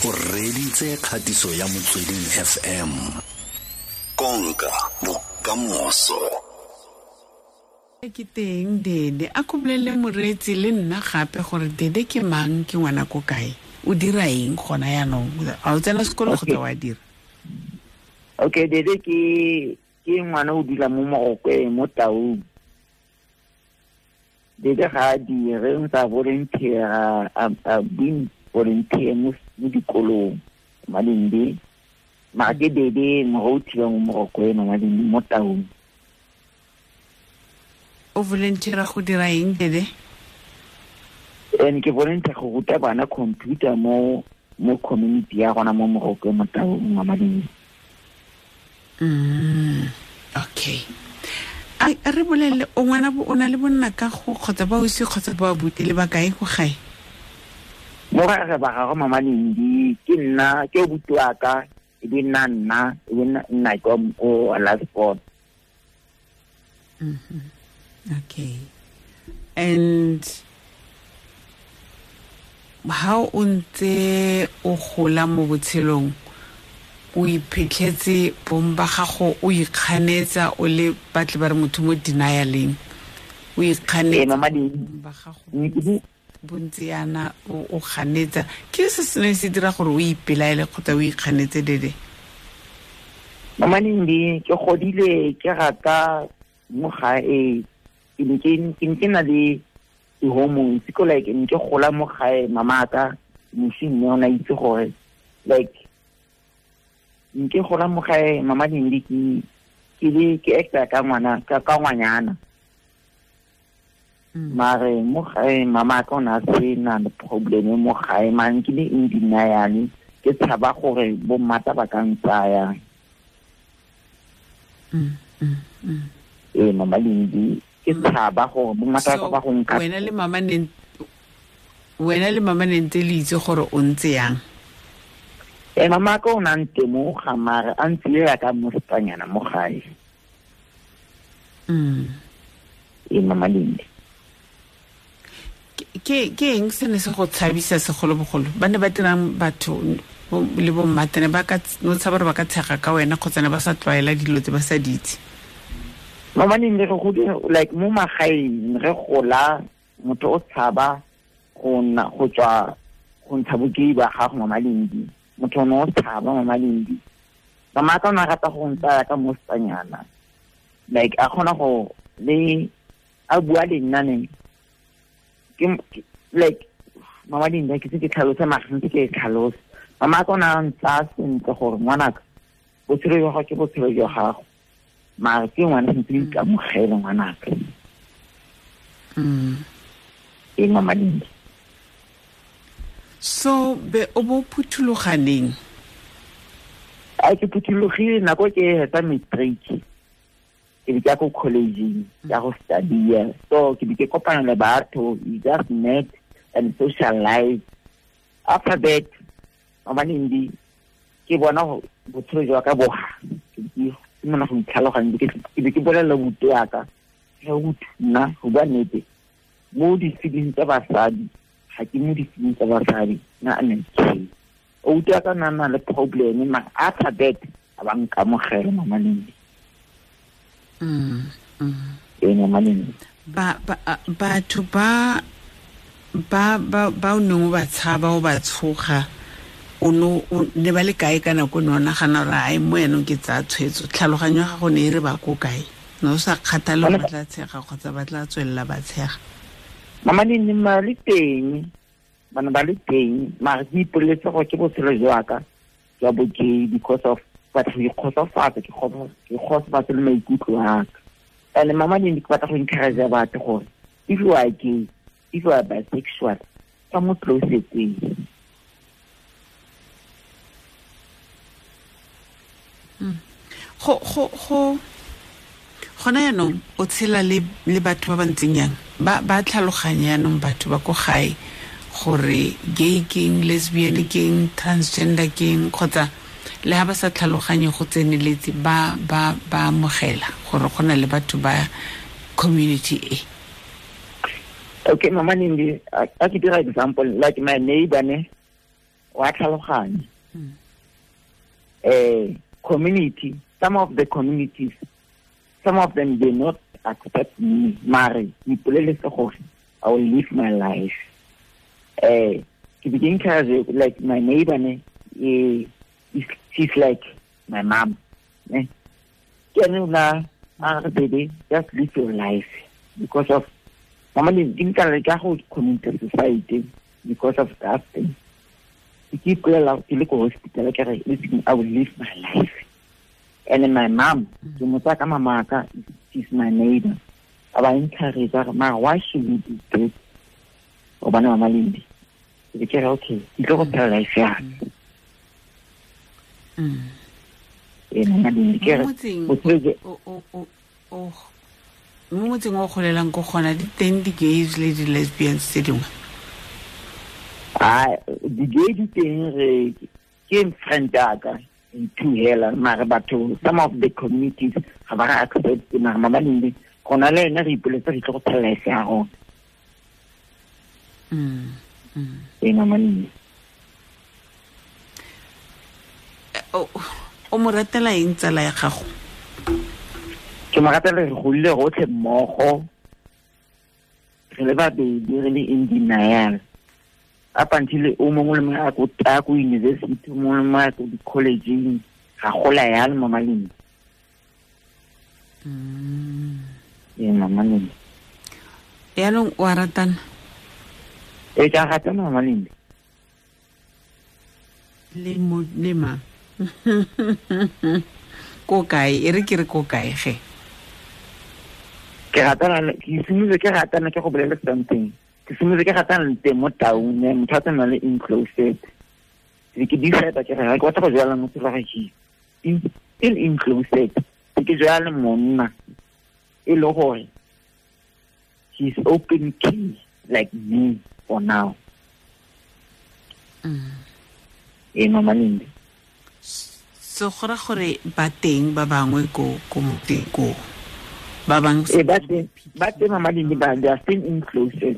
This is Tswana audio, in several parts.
O reditse kgatiso ya Motsweding FM. Konka bokamoso. Ke teng Dede, a ko bolelele moreetsi le nna gape gore Dede ke mang, ke ngwana ko kae, o dira eng gona yaanong, a o tsena sekolo kgotsa wa dira? Okay, Dede ke ngwana o dula mo Morokweng, mo Taung. Dede ga a dire, o ntse a volunteer, a been volunteer mo dikolong, Malindi. Mara ke Dede moruti wa mo Morokweng, Malindi, mo Taung. O volunteer go dira eng, Dede? And ke volunteer go ruta bana computer mo community ya rona mo Morokweng, mo Taung, Malindi. Okay. A re bolelele, o ngwana o na le bonna ka go kgotsa ba osi kgotsa ba abuti le ba kae go gae? Mo ga re ba gagwe Mama Lindi, ke nna, ke obuti wa ka, e be nna nna, e be nna ke o last born. Okay. And how o ntse o gola mo botshelong, o iphitlhetse bong ba gago, o ikganetsa o le batle ba re motho mo denialeng, o ikganetsa Mama Lindi. ba gago bontsi yana o ganetsa, ke se se neng se dira gore o ipelaele kgotsa o ikganetse, Dede? Mama Lindi, ke godile ke rata mo gae, ke ne ke na le di-hormones, ke like ne ke gola mo gae, mama ka mosi mme o ne a itse gore like nke gola mo gae, Mama Lindi, ke le ke acta ka ngwana, ka ngwanyana. Mare mo gae mama ka o ne a se na le problem mo gae, mare ke le in denial, ke tshaba gore bo mmata ba ka ntsaya. Ee, Mama Lindi, ke tshaba gore bo mmata ba go nka. Wena le mama ne, wena le mama ne ntse le itse gore o ntse yang? Mama ka o ne a ntemoga, mare a ntse ya ka mosetsanyana mo gae. Mama Lindi. Ke eng se ne se go tshabisa segolobogolo? Ba ne ba dirang batho le bo mmatene ba ka no tshaba gore ba ka tshega ka wena kgotsa ne ba sa tlwaela dilo tse ba sa di itse? Mama Lindi, re godile, like mo magaeng re gola, motho o tshaba go nna, go tswa go ntsha bokei ba gago, Mama Lindi. Motho o ne o tshaba, Mama Lindi. Mama ka o ne a rata go ntsaya ka mosetsanyana, like a kgona go le a bua le nna ne ke, like Mama Lindi, ke se ke tlhalose, mara sentse ke e tlhalose. Mama ka o ne a ntsaya sentle gore ngwanaka, botshelo jwa gago ke botshelo jwa gago, mara ke ngwana sentse o ikamogele ngwanaka. Ee, Mama Lindi. So be o bo phuthologaneng? A ke phuthologile nako ke hetsa matric, ke be ke ya ko college-eng, ke ya go study-a. So ke be ke kopana le batho, you just met and socialize. After that, Mama Lindi, ke bona botshelo jwa ka boga, ke be ke simolola go itlhaloganya, ke be ke bolelela buti wa ka, ke re, Buti, nna go bua nnete, mo di-feelings tsa basadi, ga ke mo di-feelings tsa basadi, nna a nne okay. Outi wa ka nna na le problem, mara after that, a ba nkamogela, Mama Lindi. Ee, Mama Lindi. Batho ba o neng o ba tshaba, o ba tshoga, o no, o ne ba le kae ka nako o ne o nagana gore, ai, mo yanong ke tsaya tshwetso? Tlhaloganyo ya gago ne e re ba ko kae? Ne o sa kgathale gore ba tla tshega kgotsa ba tla tswelela ba tshega? Mama Lindi, ba le teng, bana ba le teng, mara ke ipoleletse gore ke botshelo jwa ka jwa bo gay, because of batho go ikgotsofatsa, ke kgotsofatse le maikutlo a ka. And Mama Lindi, ke batla go encourage batho gore if you are gay, if you are bisexual, ka mo closeteng. Go gona yaanong o tshela le batho ba ba ntseng yang? Ba tlhaloganya yaanong batho ba ko gae gore gay keng, lesbian keng, transgender keng, kgotsa le ha ba sa tlhaloganye go tseneletse, ba amogela gore go na le batho ba community e? Okay, Mama Lindi, a ke dira example, like my neighbor ne, wa tlhaloganya. Community, some of the communities, some of them they not accept me. Mare, ipoleletse gore I will live my life. Ke be ke encourage, like my neighbor ne, she's like my mom. Ne? Ke ene o la a re, baby, just live your life. Because of mama le di nka le ka go commit suicide because of that thing. Ke ipolela ke le ko hospital ke re, listen, I will live my life. And then my mom, ke mo tsaya ka mama ka, she's my neighbor. A ba encourage a re, mara why should we do this? Gobane mama Lindi. Ke be ke re, okay, ke tlo go phela life ya ka. Ee, mama Lindi, ke re, Mo motseng botshelo jo- mo motseng o golelang ko gona di teng di-gays le di-lesbians tse dingwe? Ah, di-gay di teng, re ke friend ya ka two hela, mare batho, some of the communities ga ba re accept. Mare mama Lindi, gona le ena re ipoletse re tlo go phela life ya rona. Ee, mama Lindi. O mo ratela eng tsala ya gago? Ke mo ratela re godile rotlhe mmogo, re le babedi, re le in denial. Up until o mongwe le mongwe a ko university, o mongwe le mongwe a ko di-collegeng, ga gola yalo, mama Lindi. Ee, mama Lindi. Yaanong o a ratana? Ee, ke a ratana, mama Lindi. Le mo, le mang? Ko kae? E re ke re ko kae ge? Ke ratana le, ke simolotse ke ratana, ke go bolele something. Ke simolotse ke ratana le teng mo taung, ne, motho a tsamaya le enclosed. Ke ke decide ke re, ha ke batla go jwala motho wa gagwe. In enclosed. Ke ke jwala le monna e le gore he's open key like me for now. Ee, mama Lindi. So go ra gore ba teng ba bangwe ko motseng ko? Ba bang Ee, ba teng, ba teng, mama Lindi, ba, they are still enclosed. Ee.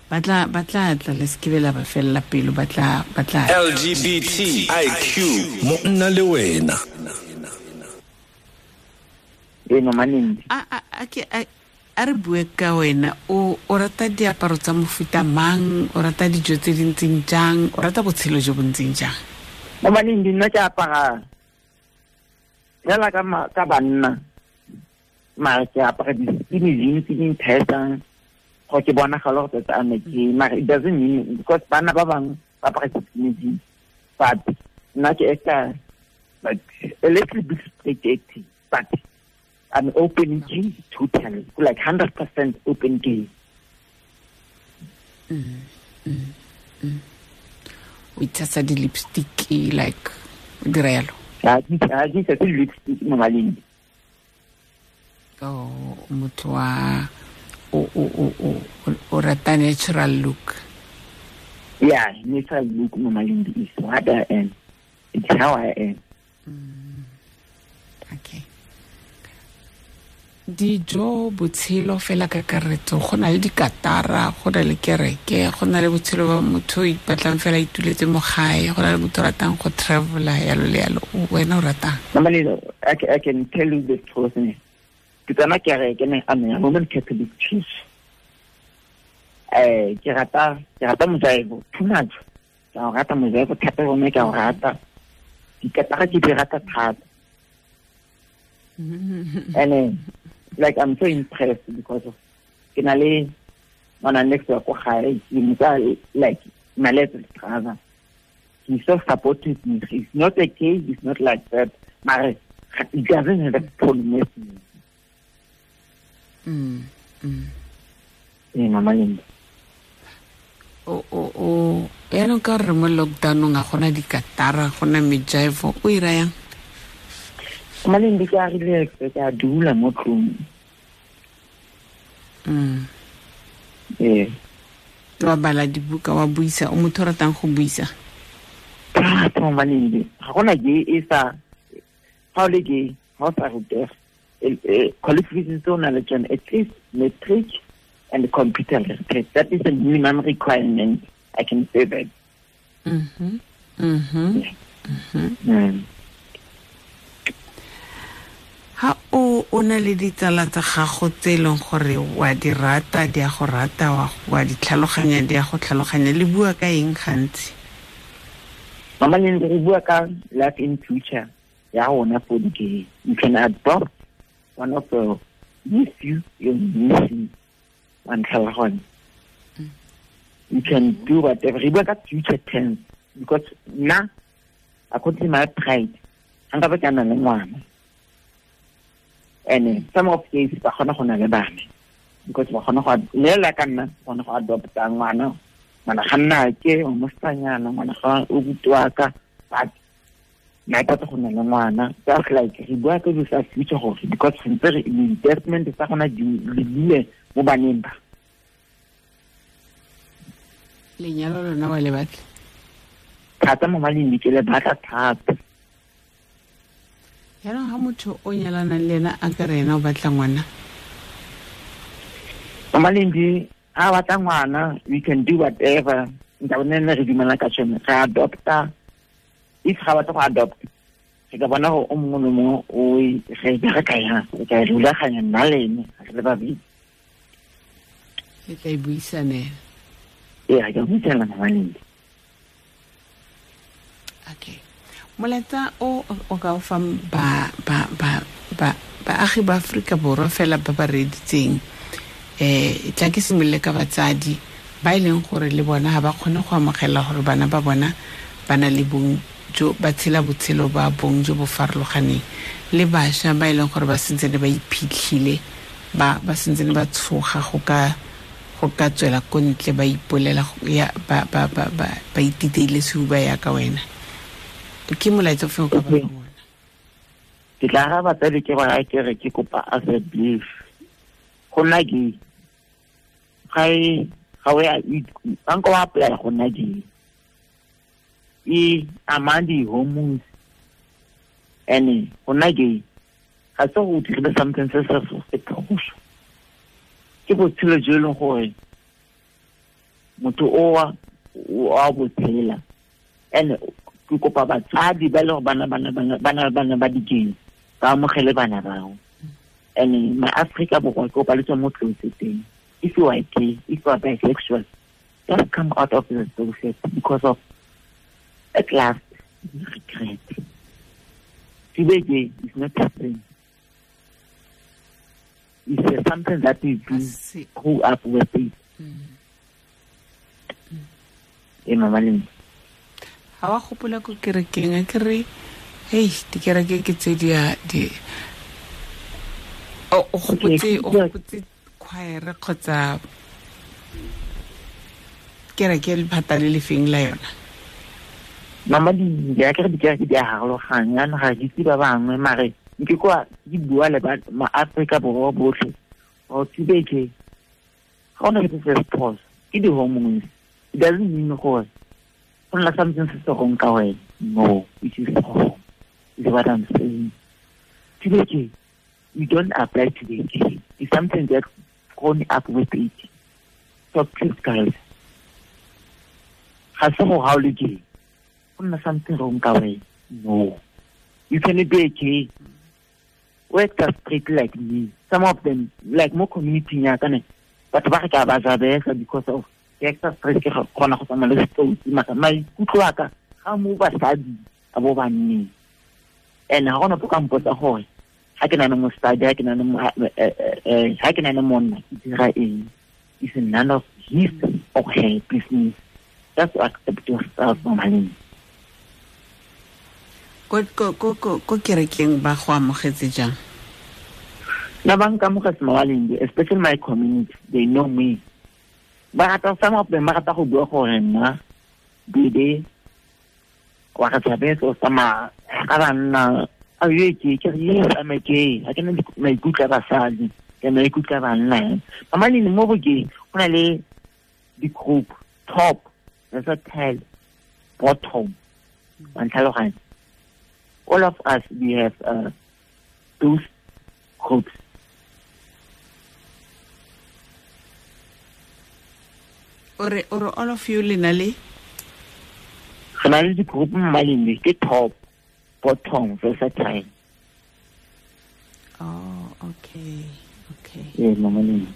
Ba tla tla le se ke be la ba fella pelo, ba tla, ba tla. LGBTIQ monna le wena. Ee, mama Lindi. A re bue ka wena, o rata diaparo tsa mofuta mang, o rata dijo tse di ntseng jang, o rata botshelo jo bo ntseng jang? Mama Lindi, nna ke apara fela ka banna, mare ke apara di-skinny jeans tse di nthetsang gore ke bonagale gore tota I'm a gay, mare it doesn't mean because banna ba bangwe ba apara di-skinny jeans, but nna ke acta like a little bit straight acting, but I'm open gay totally, like 100% open gay. O itshasa di-lipstick, like, o dira yalo? Ha ke itshase di-lipstick mo maleng. Oh, motho wa, o rata natural look. Yeah, natural look mo maleng is what I am. It's how I am. Okay. Dijo, botshelo fela ka kakaretso, go na le dikatara, go na le kereke, go na le botshelo ba motho o ipatlang fela a ituletse mo gae, go na le motho o ratang go travela, yalo le yalo. Wena o ratang? Mama Lelo, I can tell you the truth, ne. Ke tsena kereke, ne, I'm a Roman Catholic Church. Ke rata mojaibo too much. Ke a o rata mojaibo thata, gonne ke a o rata. Dikatara ke di rata thata. And then, I'm so impressed because of ke na le ngwana next wa ko gae, ke mo tsaya, like, my little brother. He's so supportive. He's not a gay, he's not like that. Mare, he doesn't have a problem with me. Ee, mama Linda. Yaanong ka re mo lockdown-ong ga gona dikatara, ga gona mejaivo, o ira yang? Mama Linda, ke a relax, ke a dula mo tlung. Ee. Wa bala dibuka, wa buisa, o motho o ratang go buisa? Thata, mama Linda. Ga gona gay e sa, ga o le gay, ga o sa rutega. Qualifications tse o nang le tsone, at least matric and computer literacy. That is the minimum requirement. I can say that. Mm-hmm. Mm-hmm. Yeah. Mm-hmm. Mm. Ha o na le ditsala tsa gago tse e leng gore wa di rata, di a go rata, wa di tlhaloganya, di a go tlhaloganya, le bua ka eng gantsi? Mama Lindi, re bua ka life in future ya rona for the gay. You can adopt one of the nephew, your niece, wa ntlhaloganya. You can do whatever. Re bua ka future tense because nna, according to my pride, ga nka ba ke na le ngwana. And some of these ba kgona go na le bana because ba kgona go lela ka nna, kgona go adopta ngwana, ngwana ga nna ke o mosetsanyana, ngwana ga o butwa ka, but nna ke batla go na le ngwana. Just like re bua ka dilo tsa future gore because sentse re investment tsa gona di lebile mo baneng ba. Lenyalo lona wa le batla? Thata mo maleng ke le batla thata. Jaanong ga motho o nyalanang le ena a ka re ena o batla ngwana? Mama Lindi, ga batla ngwana, we can do whatever. Nka bone ne re dumela ka tsone, re adopta. If ga batla go adopt, re ka bona gore o mongwe le mongwe o re bereka yang, re ka e rulaganya nna le ene, re le babedi. Le tla e buisanela? Ee, re ka buisanela, Mama Lindi. Okay. Molaetsa o ka o fang ba baagi ba Aforika Borwa fela ba ba reeditseng, tla ke simolole ka batsadi ba e leng gore le bona ga ba kgone go amogela gore bana ba bona ba na le bong jo ba tshela botshelo ba bong jo bo farologaneng, le bašwa ba e leng gore ba sentse ne ba iphitlhile, ba sentse ne ba tshoga go ka tswela ko ntle ba ipolela ya ba ititeile sehuba ya ka wena. Ke molaetsa ofe o ka ba fang ona? Ke tla araba batsadi ke ba ke re ke kopa as a belief. Go nna gay ga e ga o ya nka wa apply go nna gay. E among di-hormones and go nna gay ga se go dirile something se se se phoso. Ke botshelo jo e leng gore motho o a bo tshela. And ke kopa batsadi ba le gore bana ba di-gay ba amogele bana bao. And ma Afrika Borwa ke kopa le tswa mo closeteng. If you are gay, if you are bisexual, just come out of the closet because of at last you regret. To be gay is not a sin. It's something that we do grow up with it. E Mama Lindi. Ha wa gopola ko kerekeng a ke re hei dikereke ke tse di a di o gopotse choir kgotsa kereke lephata le lefeng la yona? Mama Lindi, a ke re dikereke di a harologanya, ga ke itse ba bangwe mare ke kwa ke bua le ba ma-Afrika Borwa botlhe gore to be gay ga ona ke se phoso, ke di-hormones. It doesn't mean gore go nna something se se wrong ka wena. No, it is wrong. Is what I'm saying. To be gay, you don't apply to be gay. It's something that's grown up with it. So please guys, ga se go ga o le gay go nna something wrong ka wena. No, you can be gay. Work straight like me. Some of them, like mo community ya ka ne, batho ba re ka ba jabesa because of ke extra stress ke kgona go tsamaya le setsotsi mara maikutlo a ka ga mo basadi a bo banneng. And ga gona po ka mpotsa gore ga ke na le mosadi, ga ke na le monna, ke dira eng. It's none of his or her business. Just accept yourself, Mama Lindi. Ko kerekeng ba go amogetse jang? Nna ba nkamogetse, Mama Lindi, especially my community, they know me. Ba rata, some of them ba rata go bua gore nna bebe wa re tshabetse o tsamaya ka banna. A ye ke re yes, I'm a gay. Ga ke na maikutlo a basadi, ke maikutlo a banna. Mama Lindi, mo go gay go na le di-group, top, there's a tail, bottom. Wa ntlhaloganya? All of us, we have those groups. Ore all of you le na le Re na le di-group mmalindi ke top, bottom, versatile. Oh, okay. Okay. Ee, mama Lindi.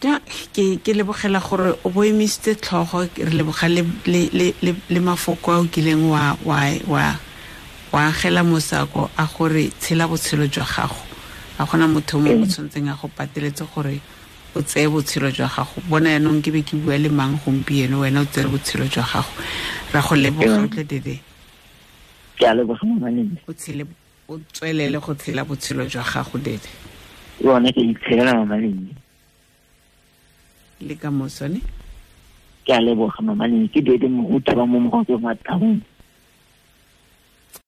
Ja, ke lebogela gore o bo emisitse tlhogo, re leboga le mafoko a o kileng wa agela mosako a gore tshela botshelo jwa gago. A gona motho mongwe o tshwanetseng a go pateletse gore o tseye botshelo jwa gago. Bona yaanong ke be ke bua le mang gompieno, wena o tsere botshelo jwa gago. Ra go leboga tle Dede. Ke a leboga mama Lindi. O tshele, o tswelele go tshela botshelo jwa gago Dede. Yone ke itshelela mama Lindi. Le ka moso ne? Ke a leboga mama Lindi, ke Dede Moruti wa mo Morokeng wa Taung.